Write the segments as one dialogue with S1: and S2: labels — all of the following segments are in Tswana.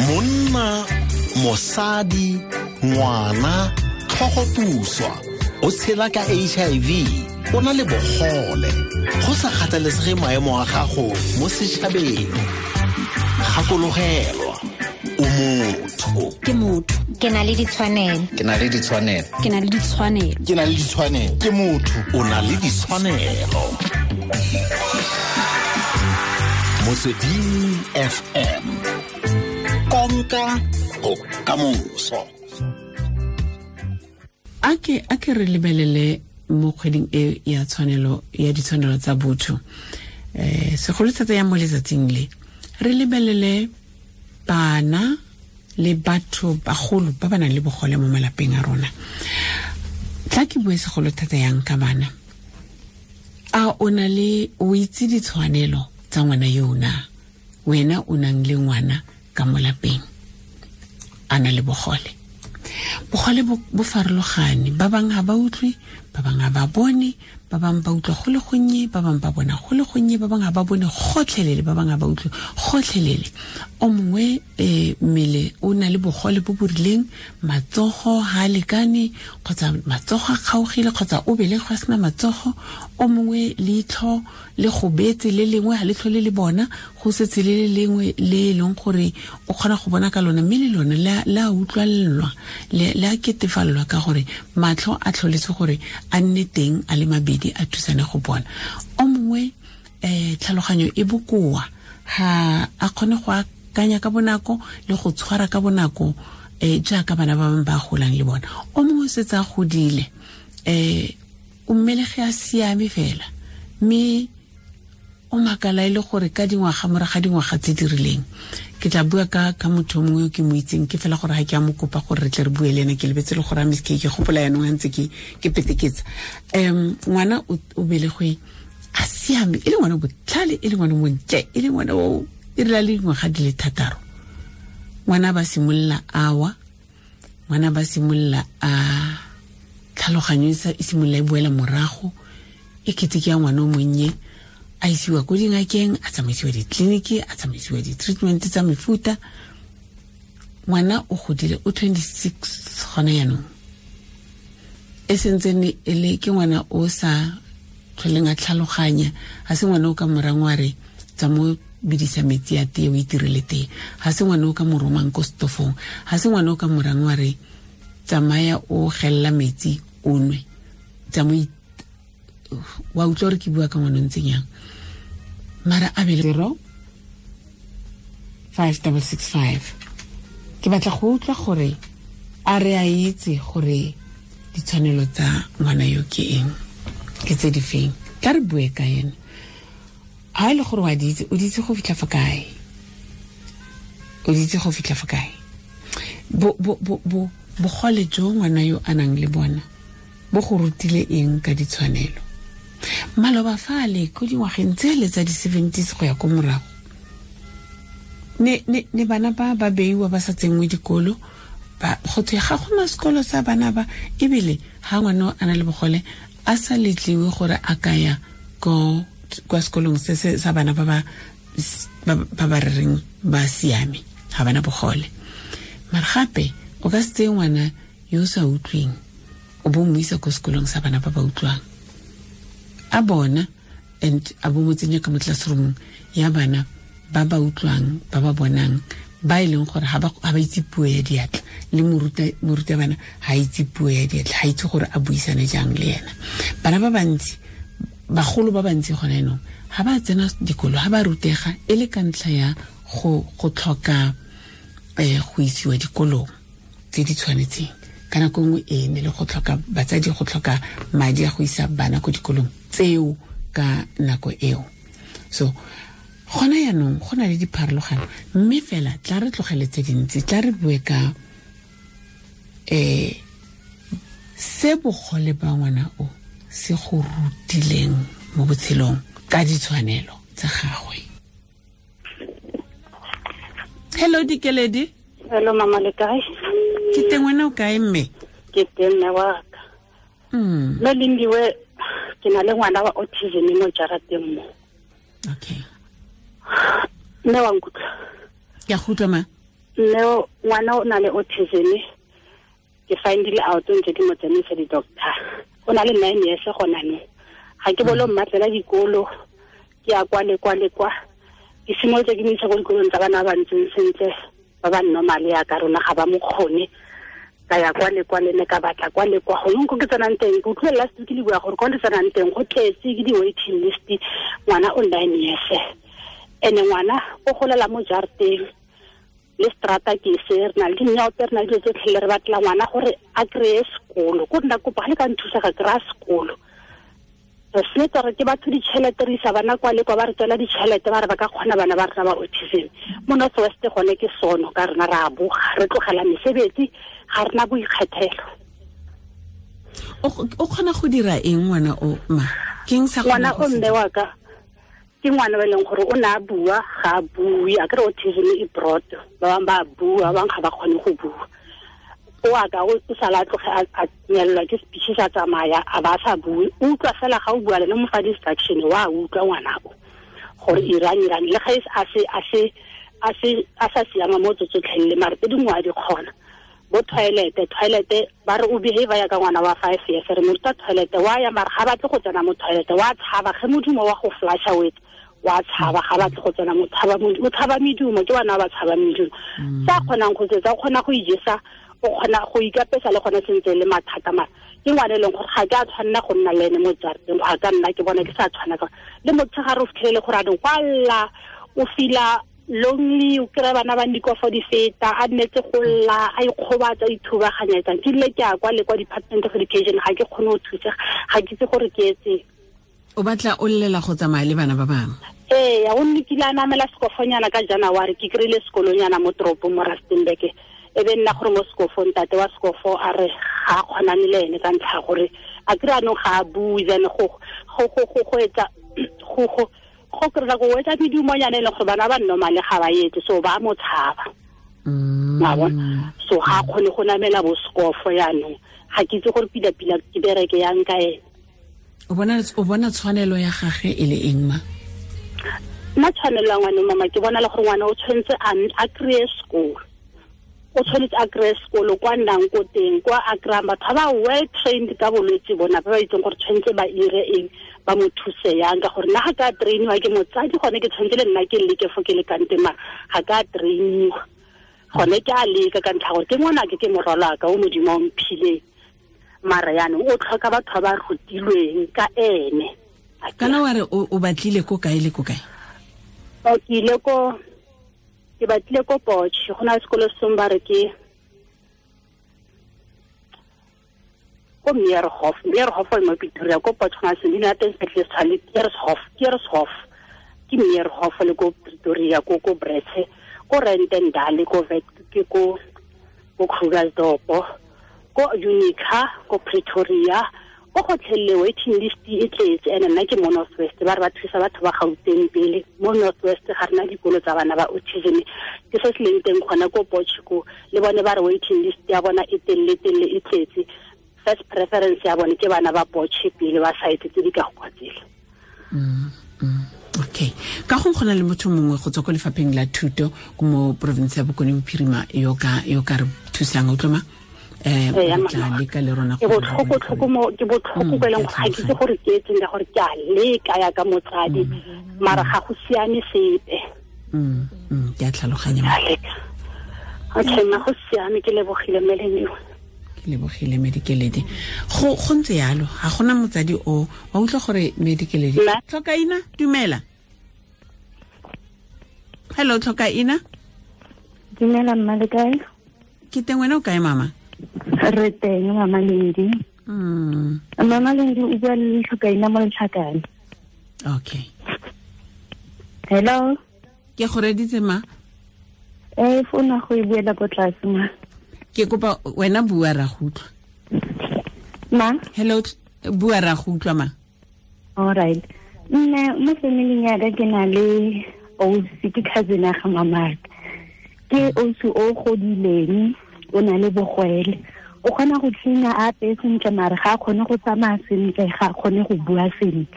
S1: Monna, mosadi, ngwana, tlhogopuswa, o tshela ka HIV, o na le bogole, go sa kgathalesege maemo a gago mo setšhabeng. Gakologelwa, o motho.
S2: Ke motho.
S3: Ke na le ditshwanelo.
S4: Ke na le ditshwanelo.
S2: Ke na le ditshwanelo.
S5: Ke na le ditshwanelo.
S6: Ke motho.
S1: O na le ditshwanelo. Motsweding FM. Konka bokamoso.
S7: A ke re lebelele mo kgweding e ya tshwanelo ya ditshwanelo tsa botho. Segolo thata ya mo letsatsing le. Re lebelele bana le batho bagolo ba ba nang le bogole mo malapeng a rona. Tla ke bue segolo thata yang ka bana. A o na le o itse ditshwanelo tsa ngwana yo na? Wena o nang le ngwana ka mo lapeng a na le bogole. Bogole bo farologane, ba bangwe ga ba utlwe, ba bangwe ga ba bone, ba bangwe ba utlwa go le gonnye, ba bangwe ba bona go le gonnye, ba bangwe ga ba bone gotlhelele, ba bangwe ga ba utlwe gotlhelele. O mongwe mmele o na le bogole bo bo rileng, matsogo ga a lekane, kgotsa matsogo a kgaogile, kgotsa o belegwe a sena matsogo. O mongwe leitlho le gobetse le lengwe ga letlho le le bona, go setse le le lengwe le e leng gore o kgona go bona ka lona, mme le lone le a utlwalelwa, le a ketefalelwa ka gore matlho a tlholetse gore a nne teng a le mabedi a thusane go bona. O mongwe tlhaloganyo e bokoa, ga a kgone go akanya ka bonako le go tshwara ka bonako jaaka bana ba bangwe ba golang le bona. O mongwe o setse a godile, o mmelege a siame fela, mme o makala e le gore ka dingwaga morago ga dingwaga tse di rileng. Ke tla bua ka motho mongwe yo ke mo itseng, ke fela gore ga ke a mo kopa gore re tle re bue le ene, ke lebetse le gore a miske ke gopola yanong a ntse ke peteketsa. Ngwana o belegwe a siame, e le ngwana botlhale, e le ngwana montle, e le ngwana o e rile le dingwaga di le 6. Ngwana ba simolola awa, ngwana ba simolola a tlhaloganyo e simolola e boela morago, e kete ke ya ngwana o monnye, a isiwa ko dingakeng, a tsamaisiwa ditleliniki, a tsamaisiwa di-treatment tsa mefuta. Ngwana o godile, o 26 gona jaanong, e sentsene e le ke ngwana o sa tlholeng a tlhaloganya. Ga se ngwana o ka morang wa re tsa mo bidisa metsi a tee o itirele tee, ga se ngwana o ka mo romang ko stofong, ga se ngwana o ka morang wa re tsamaya o gelela metsi o nwe, tsa mo wa utlwa gore ke bua ka ngwana o ntseng yang. Mara a bele 0 5665. Ke batla go utlwa gore a re a itse gore ditshwanelo tsa ngwana yo ke eng, ke tse di feng. Tla re bue ka ene. Ha e le gore wa di itse, o di itse go fitlha fa kae? O di itse go fitlha fa kae? Bogole jo ngwana yo a nang le bona bo go rutile eng ka ditshwanelo? Maloba fale ko dingwageng tsele tsa di-70s go ya ko morago, ne bana ba ba beiwa ba sa tsenngwe dikolo, go thwe ga gona sekolo sa bana ba, ebile ga ngwana a na le bogole a sa letliwe gore a ka ya kwa sekolong se se sa bana ba ba reng ba siame, ga bana bogole. Mara gape o ka se tseye ngwana yo o sa utlweng o bo mo isa ko sekolong sa bana ba ba utlwang, a bona and a bo mo tsenya ka mo classroomong ya bana ba ba utlwang, ba ba bonang, ba e leng gore ga ba itse puo ya diatla, le morutabana ga itse puo ya diatla, ga itse gore a buisane jang le ena. Bana ba bantsi, bagolo ba bantsi gona jaanong ga ba tsena dikolo, ga ba rutega e le ka ntlha ya go tlhoka go isiwa dikolong tse di tshwanetseng. Ka nako nngwe e ne le go tlhoka batsadi, go tlhoka madi a go isa bana ko dikolong tseo ka nako eo. So gona jaanong go na le dipharologano, mme fela tla re tlogele tse dintsi, tla re bue ka se bogole ba ngwana o se go rutileng mo botshelong ka ditshwanelo tsa gagwe. Hello Dikeledi.
S8: Hello mama, le kae?
S7: Ke teng, wena o kae mme?
S8: Ke teng mme wa ka. Mme Lindiwe, ke na le ngwana wa autism mo jarateng mo.
S7: Okay.
S8: Mme wa nkutlwa?
S7: Ke a go utlwa ma.
S8: Mme ngwana o na le autism. Ke findile out ntse ke mo tsamaisa di-doctor. O na le 9 years gona no. Ga ke bolo mmatlela dikolo, ke ya kwa le kwa le kwa. Ke simolotse ke mo isa ko dikolong tsa bana ba ntseng sentle, ba ba normal ya ka rona ga ba mo kgone. Ka ya kwa le kwa le ne ka batla kwa le kwa. Gongwe ko ke tsenang teng, ke utlwile last week le bua gore ko le tsenang teng go tletse ke di-waiting list, ngwana o 9 years. Ene ngwana o golela mo jarateng le strata ke se re na le dinyaope, re na le dilo tsotlhe le re batla ngwana gore a kry-e sekolo. Ko nna kopa ga le ka nthusa ga kry-a sekolo. Re setse re ke batho ditšhelete, re isa bana kwa le kwa, ba re tswela ditšhelete, ba re ba ka kgona bana ba rena ba autism. Mo North West gone ke sono ka rena re a boga, re tlogela mesebetsi, ga rena boikgethelo.
S7: O kgona go dira eng ngwana o ma? Ke eng sa
S8: ngwana o mme wa ka? Ke ngwana ba leng gore o ne a bua, ga a bue, a kry autism e broad, ba bangwe ba bua, ba bangwe ga ba kgone go bua. O a ka o sala tloge a nyelelwa ke speech sa tsamaya, a ba sa bue, o utlwa fela ga o bua le mo fa distraction, wa utlwa ngwana o gore irang irang, le ga a sa siama mo tsotlhe le mare tse dingwe a di kgona. Bo toilet ba re o behave ya ka ngwana wa 5 years, re mo ruta toilet, wa ya mare ga batle go tsena mo toilet, wa tshaba ge modumo wa go flasha wet, wa tshaba ga batle go tsena mo tshaba, o tshaba medumo, ke bana ba tshaba medumo. Sa kgonang go tsetsa, o kgona go ijesa, o kgona go ikapesa le gone sentse le mathata mara ke ngwana e leng gore ga ke a tshwanela go nna le ene mo jarateng, ga ka nna ke bona ke sa tshwana ka le motshegare o fitlhelele gore a re kwalla, o fila lonely, o kry-a bana ba dikofo di feta, a nnetse go lla, a ikgobatsa, a ithubaganyetsang. Ke ile ke ya kwa le kwa Department of Education, ga ke kgone go thusega, ga ke itse gore ke etseng.
S7: O batla o llela go tsamaya le bana ba bangwe?
S8: Ee, o nne kile a namela sekofonyana ka January, ke kry-ile sekolonyana mo toropong mo Rustenburg. E be nna gore mo sekofong, ntate wa sekofo a re ga a kgonane le ene ka ntlha gore a kry anong ga a bue, then go etsa go kry-a go etsa medumonyana e leng gore bana ba normal ga ba etse, so ba mo tshaba. Wa bona? So ga a kgone go namela bo sekofo yaanong, ga ke itse gore pila-pila ke bereke yang ka ene.
S7: O bona tshwanelo ya gagwe e le eng ma?
S8: Nna tshwanelo ya ngwana mama, ke bona le gore ngwana o tshwanetse a kry-e sekolo. O tshwanetse a kry-e sekolo kwa nnang ko teng, kwa a kry-ang batho ba well trained ka bolwetse bona, ba ba itseng gore tshwanetse ba ire eng, ba mo thuse yang. Ka gore nna ga ka trainiwa ke motsadi, gone ke tshwanetse le nna ke leke fo ke lekang teng, mara ga ka trainiwa. Gone ke a leka ka ntlha gore ke ngwanake, ke morwalaka o Modimo o mphileng, mara yaanong o tlhoka batho ba ba rutilweng ka ene.
S7: Kana wa re o batlile ko kae le ko kae?
S8: O ke ile ko, ke batlile ko Potch, go na le sekolo sengwe ba re ke ko Meerhof, Meerhof e mo Pretoria, ko Potch go na le sengwe, leina la teng sepetlele se tshwana le Keershof, ke Meerhof le ko Pretoria, ko Bretse, ko Rentendale, ko Vet, ke ko Krugersdorp, ko Unica, ko Pretoria, ko gotlhelele waiting list e tletse. Ene nna ke mo North West, ba re ba thusa batho ba Gauteng pele. Mo North West ga rena dikolo tsa bana ba autism, ke se se leng teng gona ko Potch ko, le bone ba re waiting list ya bona e telele telele e tletse. First preference ya bone ke bana ba Potch pele, ba site tse di ka go kwa tsela.
S7: Okay, ka go gona le motho mongwe go tswa ko lefapheng la thuto mo province ya Bokone Bophirima yo ka re thusang, o tloma? Tla leka le rona
S8: ke botlhoko mo ke botlhoko go leng ga ke itse gore ke etseng ka gore ke a leka ya ka motsadi, mara ga go siame sepe.
S7: Ke a tlhaloganya.
S8: Okay, ma go siame, ke lebogile Melanie.
S7: Ke lebogile Medikeledi. Go ntse yalo, ga gona motsadi o wa utlwa gore Medikeledi. Tlhokaina, dumela. Hello Tlhokaina.
S2: Dumela mma, le kae?
S7: Ke teng, wena o kae mama?
S2: Re teng mama Lendi. Mama Lendi o bua le Tlhokaina mo Letlhakane.
S7: Okay.
S2: Hello.
S7: Ke go reditse ma?
S2: Founa go e buela ko tlase ma.
S7: Ke kopa wena bua ra go utlwa.
S2: Ma?
S7: Hello, bua ra go utlwa ma.
S2: All right. Nna mo familing ya ka ke na le ausi, ke cousin ya ga mamaka. Ke ausi o godileng, o na le bogwele. O kgona go tlina a apeye sentle, mare ga a kgone go tsamaya sentle, ga a kgone go bua sentle.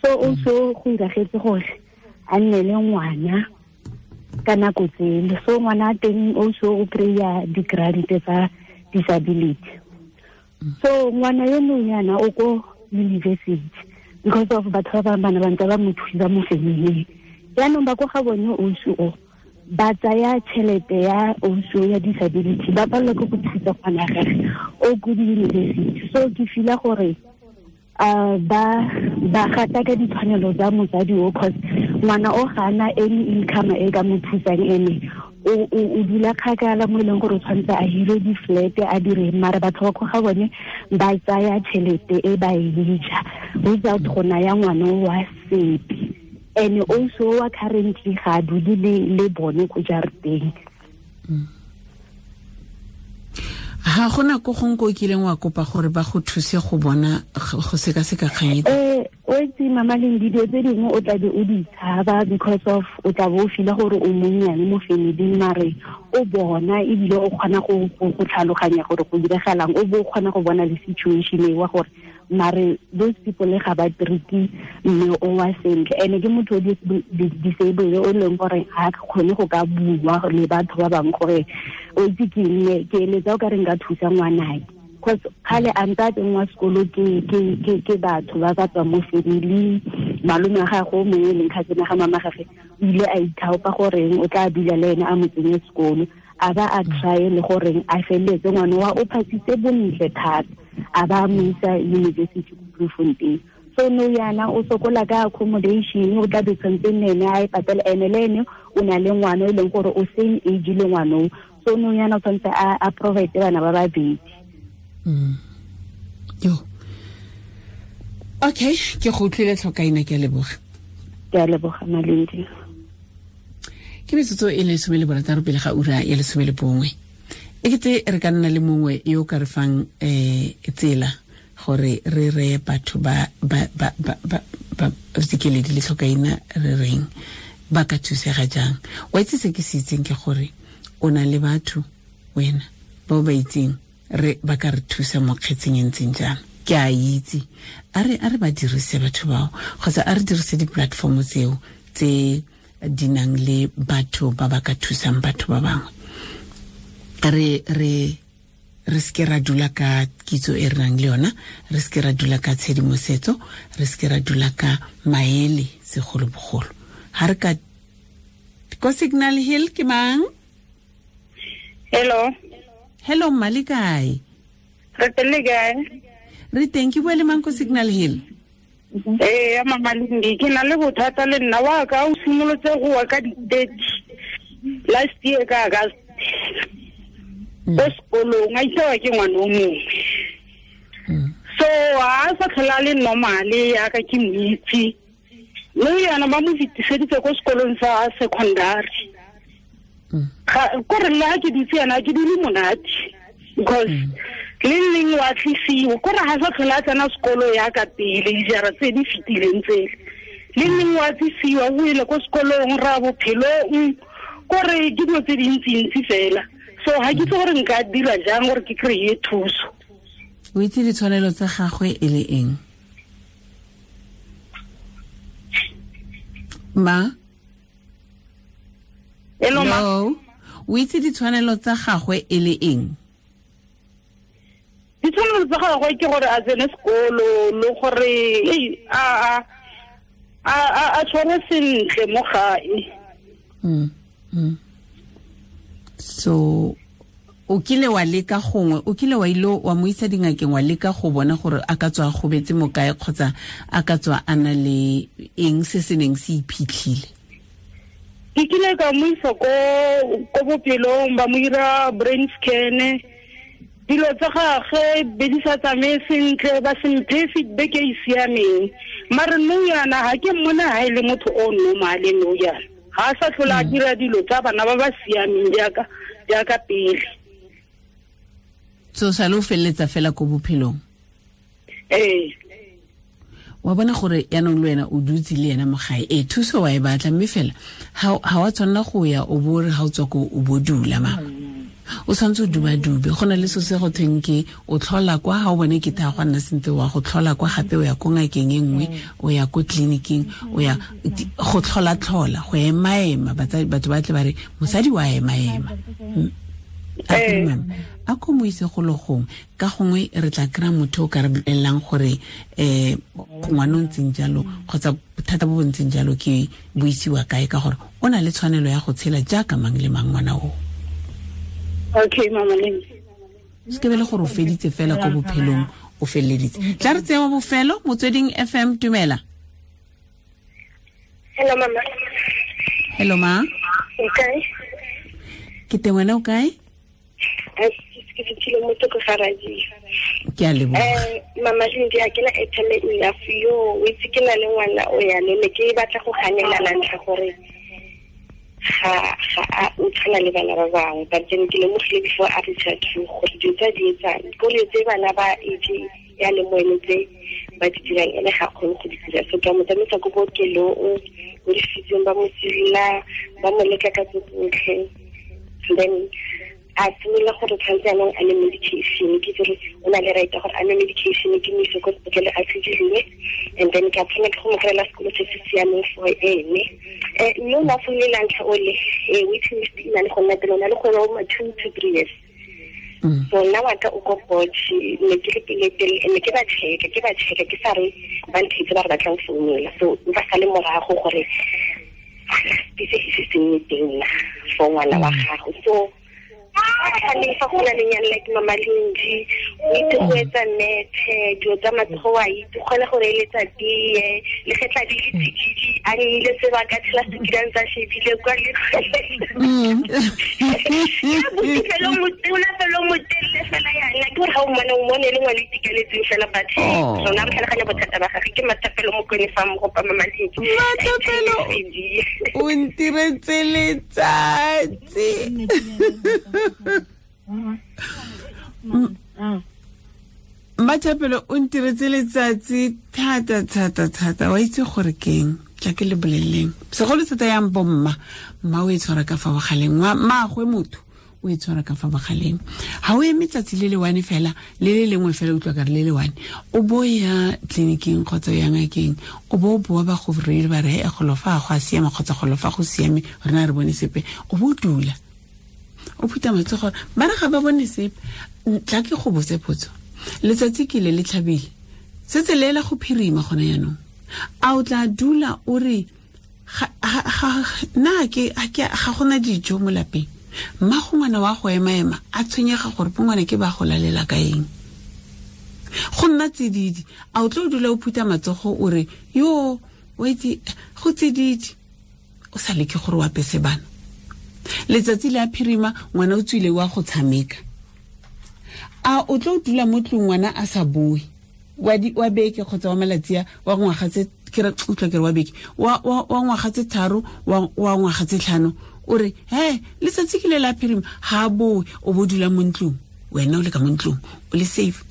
S2: So also go iragetse gore a nne le ngwana Ka nako tsele so ngwana teng also o kry-a di-grant tsa disability. So ngwana yo nonyana o ko university because of batho ba bangwe bana ba ntse ba mo thusa mo familing. Jaanong ba ko ga bone ausi o ba tsaya tšhelete ya ausi ya disability, ba palelwa ke go thusa ngwana gage o ko di-university. So ke feel-a gore ba gata ka ditshwanelo tsa motsadi o, cause ngwana o ga ana any income e ka mo thusang, ene o dula kgakala mo e leng gore o tshwanetse a hire di-flat a dire, mara batho ba ko ga bone ba tsaya tšhelete e ba e ja without go naya ngwana wa sepe. And also wa currently ga a dule le bone ko jarateng.
S7: Ha gona ko gongwe ko o kileng wa kopa gore ba go thuse go bona go sekaseka kgang e?
S2: O itse Mama Lendi, dilo tse dingwe o tlabe o di tshaba because of o tla bo o feel-a gore o monnyane mo familing, mare o bona ebile o kgona go tlhaloganya gore go diragalang, o bo o kgona go bona le situation e wa gore mare those people ga ba treat mme o wa sentle. Ene ke motho o disabled o leng gore ga kgone go ka bua le batho ba bangwe gore o itse ke eng, ke eletsa o ka re nka thusa ngwanake, cause kgale a ntse a tsenngwa sekolo ke batho ba ba tswang mo familing. Malome wa gagwe o mongwe e leng cousin ya ga mama gage o ile a ithaopa goreng o tla dula le ene a mo tsenye sekolo, a ba a try le goreng a feleletse ngwana wa o phasitse bontle thata, a ba mo isa university ko Bloemfontein. So no yana o sokola ka accommodation, o tla be tshwanetse nne a e patela, ene le ene o na le ngwana e leng gore o same age le ngwana o, so no yana o tshwanetse a provide bana ba babedi.
S7: Yo. Okay, ke go utlwile tlhokaina, ke a leboga.
S2: Ke a leboga Malindi.
S7: Ke metsotso e le 16 pele ga ura ya 11. E kete re ka nna le mongwe yo ka re fang tsela gore re reye batho ba Dikeledi le tlhokaina re reng ba ka thusega jang. Wa itse se ke se itseng ke gore o na le batho wena ba ba itseng re ba ka re thusa mo kgetseng e ntseng jang. Ke a itse a re ba dirise batho bao, kgotsa a re dirise di-platform tseo tse di nang le batho ba ba ka thusang batho ba bangwe. Re seke ra dula ka kitso e re nang le yona, re seke ra dula ka tshedimosetso, re seke ra dula ka maele segolobogolo. Ha re ka ko Signal Hill ke mang?
S3: Hello.
S7: Hello mma, le kae?
S3: Re teng, le kae?
S7: Re teng, ke bua le mang ko Signal Hill?
S3: Ee, Mama Lendi, ke na le bothata le nna wa ka o simolotse go wa ka di-30 last year ka August. Ko sekolong a itsewa ke ngwana o mongwe. So a sa tlhola le normale yaka ke mo itse. Mme yana ba mo fetiseditse ko sekolong sa secondary. Kore le ha ke dutse yana ke dule monate because le leng wa tlisiwa kore ha sa tlhola a tsena sekolo yaka pele dijara tse di fetileng tsele. Le leng wa tlisiwa o ile ko sekolong ra bophelong kore ke dilo tse dintsintsi fela. So ha ke itse gore nka dira jang gore ke kry-e thuso.
S7: O itse ditshwanelo tsa gagwe e le eng? Ma?
S3: Hello, ma.
S7: O itse ditshwanelo tsa gagwe e le eng?
S3: Ditshwanelo tsa gagwe ke gore a tsene sekolo le gore a tshware sentle mo gae.
S7: So o kile wa leka gongwe, o kile wa ile wa mo isa dingakeng wa leka go bona gore a ka tswa a gobetse mo kae kgotsa a ka tswa a na le eng se se neng se iphitlhile?
S3: Ke kile ka mo isa ko bophelong ba mo ira brain scan. Dilo tsa gagwe be di sa tsamaye sentle, ba se mphe feedback e e siameng. Mare nou yana ha ke mmona ha e le motho o normale nou yana. Ga a sa tlhola a dira dilo tsa bana ba ba siameng jaaka pele.
S7: So sa lo feleletsa fela ko bophelong?
S3: Ee.
S7: Wa bona gore yaanong le wena o dutse le ena mo gae, ee thuso wa e batla, mme fela ha wa tshwanela go ya o bo re ha o tswa ko o bo dula mama. O tshwanetse o dubadube, go na le so se go thweng ke o tlhola kwa, ga o bone ke tha go nna sentle, wa go tlhola kwa gape, o ya ko ngakeng e nngwe, o ya ko tleliniking, o ya go tlhola-tlhola, go ema-ema. Batho ba tle ba re mosadi wa ema-ema. A ko mo ise go le gongwe, ka gongwe re tla kry-a motho o ka re bolelelang gore ngwana o ntseng jalo kgotsa bothata bo bo ntseng jalo ke bo isiwa kae, ka gore o na le tshwanelo ya go tshela jaaka mang le mang ngwana o.
S3: Okay, mama Lindi.
S7: Se ke be le gore o feditse fela ko bophelong, o feleleditse. Tla re tsewa bofelo, Motsweding FM, dumela.
S4: Hello mama.
S7: Hello ma.
S4: O kae?
S7: Ke teng, wena o kae?
S4: Ke fitlhile mo toko ga radio.
S7: Ke a leboga.
S4: Mama Lindi, ha ke na airtime enough yo, o itse ke na le ngwana o ya le ne ke batla go ganela la ntlha gore ga a o tshwana le bana ba bangwe, but then ke lemogile before a reach out to gore dilo tse di etsang ke gore tse bana ba age ya le mo ene tse ba di dirang ene ga kgone go di dira. So ka mo tsamaisa ko bookelong, ko difitseng, ba mo silla, ba mo leka ka tse tsotlhe, then a simolola gore tshwanetse jaanong a ne medication. Ke itse gore o na le right ya gore a nwe medication, ke mo ise ko sepetlele a tshediriwe, and then ke a tshwanela ke go mo kry-ela sekolo se se siameng for ene. Mme o ne a founile la ntlha ole, waiting list e na le go nna pele, o na le gore o ma 2 to 3 years. So nna wa ka o ko Potch, ne ke le pele pele, ne ke ba check-a, ke sa re ba nthetse ba re batlang founela, so ba sale morago gore se se se nne teng na for ngwana wa gago. So fa go na le nyane like Mama Lindi, o itse go etsa methe, dilo tsa matsogo wa itse, o kgona go reeletsa tee, le ge tla di le tsididi, a nnile sebaka tshela sekilang tsa shebile kwa le fela o motelele fela yana, ke gore ga o mmone, o mmone e le ngwana o itekanetseng fela, but rona re tlhaloganya bothata ba gagwe. Ke Mathapelo Mokone fa mogopa Mama Lindi.
S7: Mathapelo, o ntiretse letsatsi. Mathapelo, o ntiretse letsatsi thata thata thata. Wa itse gore keng, tla ke le boleleng segolo thata yang bomma, mma o e tshwara ka fa bogaleng, mmaagwe motho o e tshwara ka fa bogaleng. Ha o eme tsatsi le le one fela, le le lengwe fela, utlwa ka re le le one, o bo ya tleliniking kgotsa ya ngakeng, o bo o boa ba go reile ba re golo fa go a siama kgotsa golo fa go siame, rena re bone sepe, o bo o dula o phutha matsogo, ba re ga ba bone sepe. Tla ke go botse potso, letsatsi ke le le tlhabile, setse le ela go phirima gone jaanong, a o tla dula o re nna ke ga gona dijo mo lapeng, mma go ngwana wa go ema-ema a tshwenyega gore bo ngwana ke ba go lalela ka eng, go nna tsididi, a o tlo dula o phutha matsogo o re yo wa itse go tsididi, o sa leke gore o apese bana. Letsatsi le a phirima, ngwana o tswile wa go tshameka, a o tlo dula mo tlong ngwana a sa boe wa beke kgotsa wa malatsi wa ngwaga tse ke re utlwa ke re wa beke wa ngwaga tse 3 wa ngwaga tse 5, o re he letsatsi ke le la phirima, ha boe, o bo dula mo ntlong, wena o le ka mo ntlong o le safe.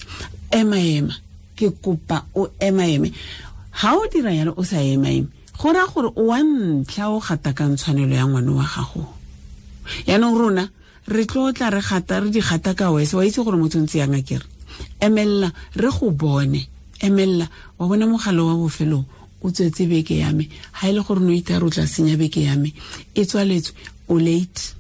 S7: Ema-ema, ke kopa o ema-eme. Ha o dira yalo o sa ema-eme, go raya gore o wa ntlha o gatakang tshwanelo ya ngwana wa gago. Yaanong rona re tlo tla re gata re di gata ka wese, wa itse gore motho ntse yang akere. Emella re go bone, emella wa bona mogala wa bofelo o tswetse beke ya me, ha e le gore no itare o tla senya beke ya me, e tswaletswe, o late.